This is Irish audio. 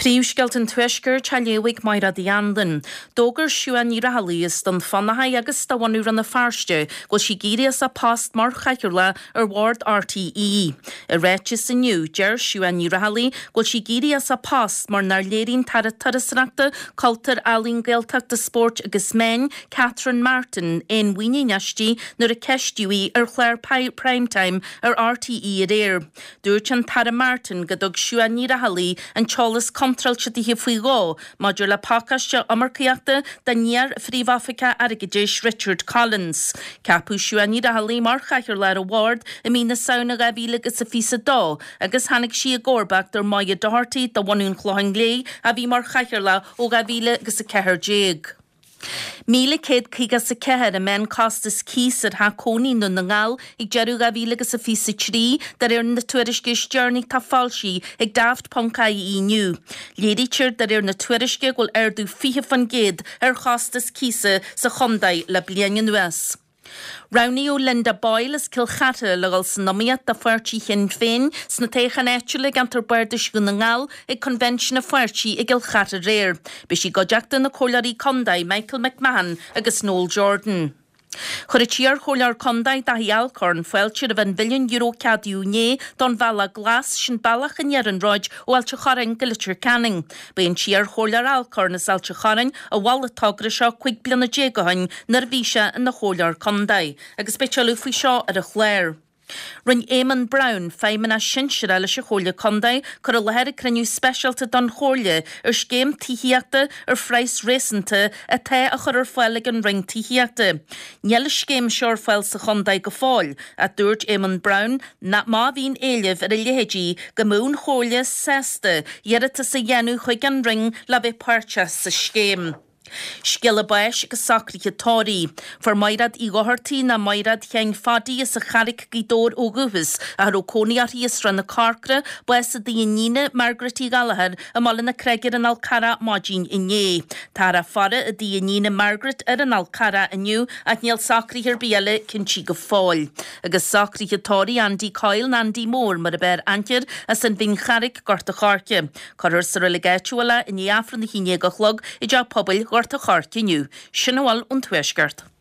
Príomhscéalta an Tuaiscirt á léamh ag Máire Uí Anluain. D'fhógair Siuán Ní Raghallaigh as Dún Fionnachaidh agus de bhunadh Rann na Feirste go bhfuil sí ag éirí as a post mar chathaoirleach ar bhord RTÉ. I ráiteas inniu, deir Siuán Ní Raghallaigh go bhfuil sí ag éirí as a post mar nár léirigh an tAire Turasóireachta, Cultúir, Ealaíon, Gaeltachta, Spóirt agus Meán, Catherine Martin, aon mhuinín aisti nuair a ceistíodh í ar chlár Prime Time ar RTÉ aréir. Dúirt an tAire Martin go dtug Siuán Ní Raghallaigh an t-eolas contráilte dithe faoi dhó maidir le pacáiste iomarcaíochta don iar-Phríomh-Oifigeach Airgeadais Richard Collins. Ceapadh Siuán Ní Raghallaigh mar Chathaoirleach ar an bhord i mí na Samhna 2022 agus tháinig sí i gcomharbacht ar Moya Doherty de bhunadh an Chlocháin Léith a bhí mar Chathaoirleach ó 2014. 1,154 an meánchostas cíos ar theach cónaí i nDún na nGall ag deireadh 2023, de réir na tuairisce is deireanaí atá foilsithe ag Daft Ponc IE inniu. Léirítear de réir na tuairisce go bhfuil ardú 20% ar chostas cíosa sa chontae le bliain anuas. Roghnaíodh Linda Boyle as Cill Chartha le dhul san iomaíocht do pháirtí Shinn Féin sna toghcháin áitiúla i gceantar Bardais Dhún na nGall ag coinbhinsiún an pháirtí i gCill Chartha aréir. Beidh sí i gcuideachta na Comhairleoirí Contae Michael McMahon agus Noel Jordan. Chuir an t-iarchomhairleoir contae Daithí Alcorn fáilte roimh an mhilliún euro a ceadaíodh inné don Bhealach Glas, sin bealach an iarnróid ó Ailt an Chorráin go Leitir Ceanainn. Ba é an t-iarchomhairleoir Alcorn as Ailt an Chorráin a mhol an togra seo 15 bliana ó shin nuair a bhí sé ina chomhairleoir contae agus beidh tuilleadh faoi seo ar an chlár. Rinne Éamonn Brown, Feidhmeannach Sinsearach leis an Chomhairle Contae, cur i láthair ag cruinniú speisialta don Chomhairle ar scéim tithíochta ar phraghas réasúnta atá á chur ar fáil ag an Roinn Tithíochta. Níl an scéim seo ar fáil sa chontae go fóill ach dúirt Éamonn Brown nach má bhíonn éileamh ar a leithéidí go mbeadh an Chomhairle sásta iarratas a dhéanamh chuig an Roinn le bheith páirteach sa scéim. Scéala báis agus socruithe tórraimh. Fuair Maighreád Uí Dhochartaigh ná Maighreád Sheáin Phadaí as an Charraic, Gaoth Dobhair ó dhúchas, ach a raibh cónaí uirthi i Srath na Corcra, bás i dtigh a iníne, Margaret Uí Ghallchóir, i mBaile na Creige ar an Fhál Carrach maidin inné. Táthar á faire i dtigh a iníne Margaret ar an Fhál Carrach inniu ach níl socruithe ar bith eile cinntí go fóill. Agus socruithe tórraimh Andy Coyle ná Andy Mór mar ab fhearr aithne air as an Bhinn Charraic, Gort a' Choirce. Cuirfear sa reilig áitiúil é i ndiaidh Aifreann a haon dhéag a chlog i dTeach Pobail Ghort a' Choirce inniu. Sin a bhfuil ón Tuaisceart.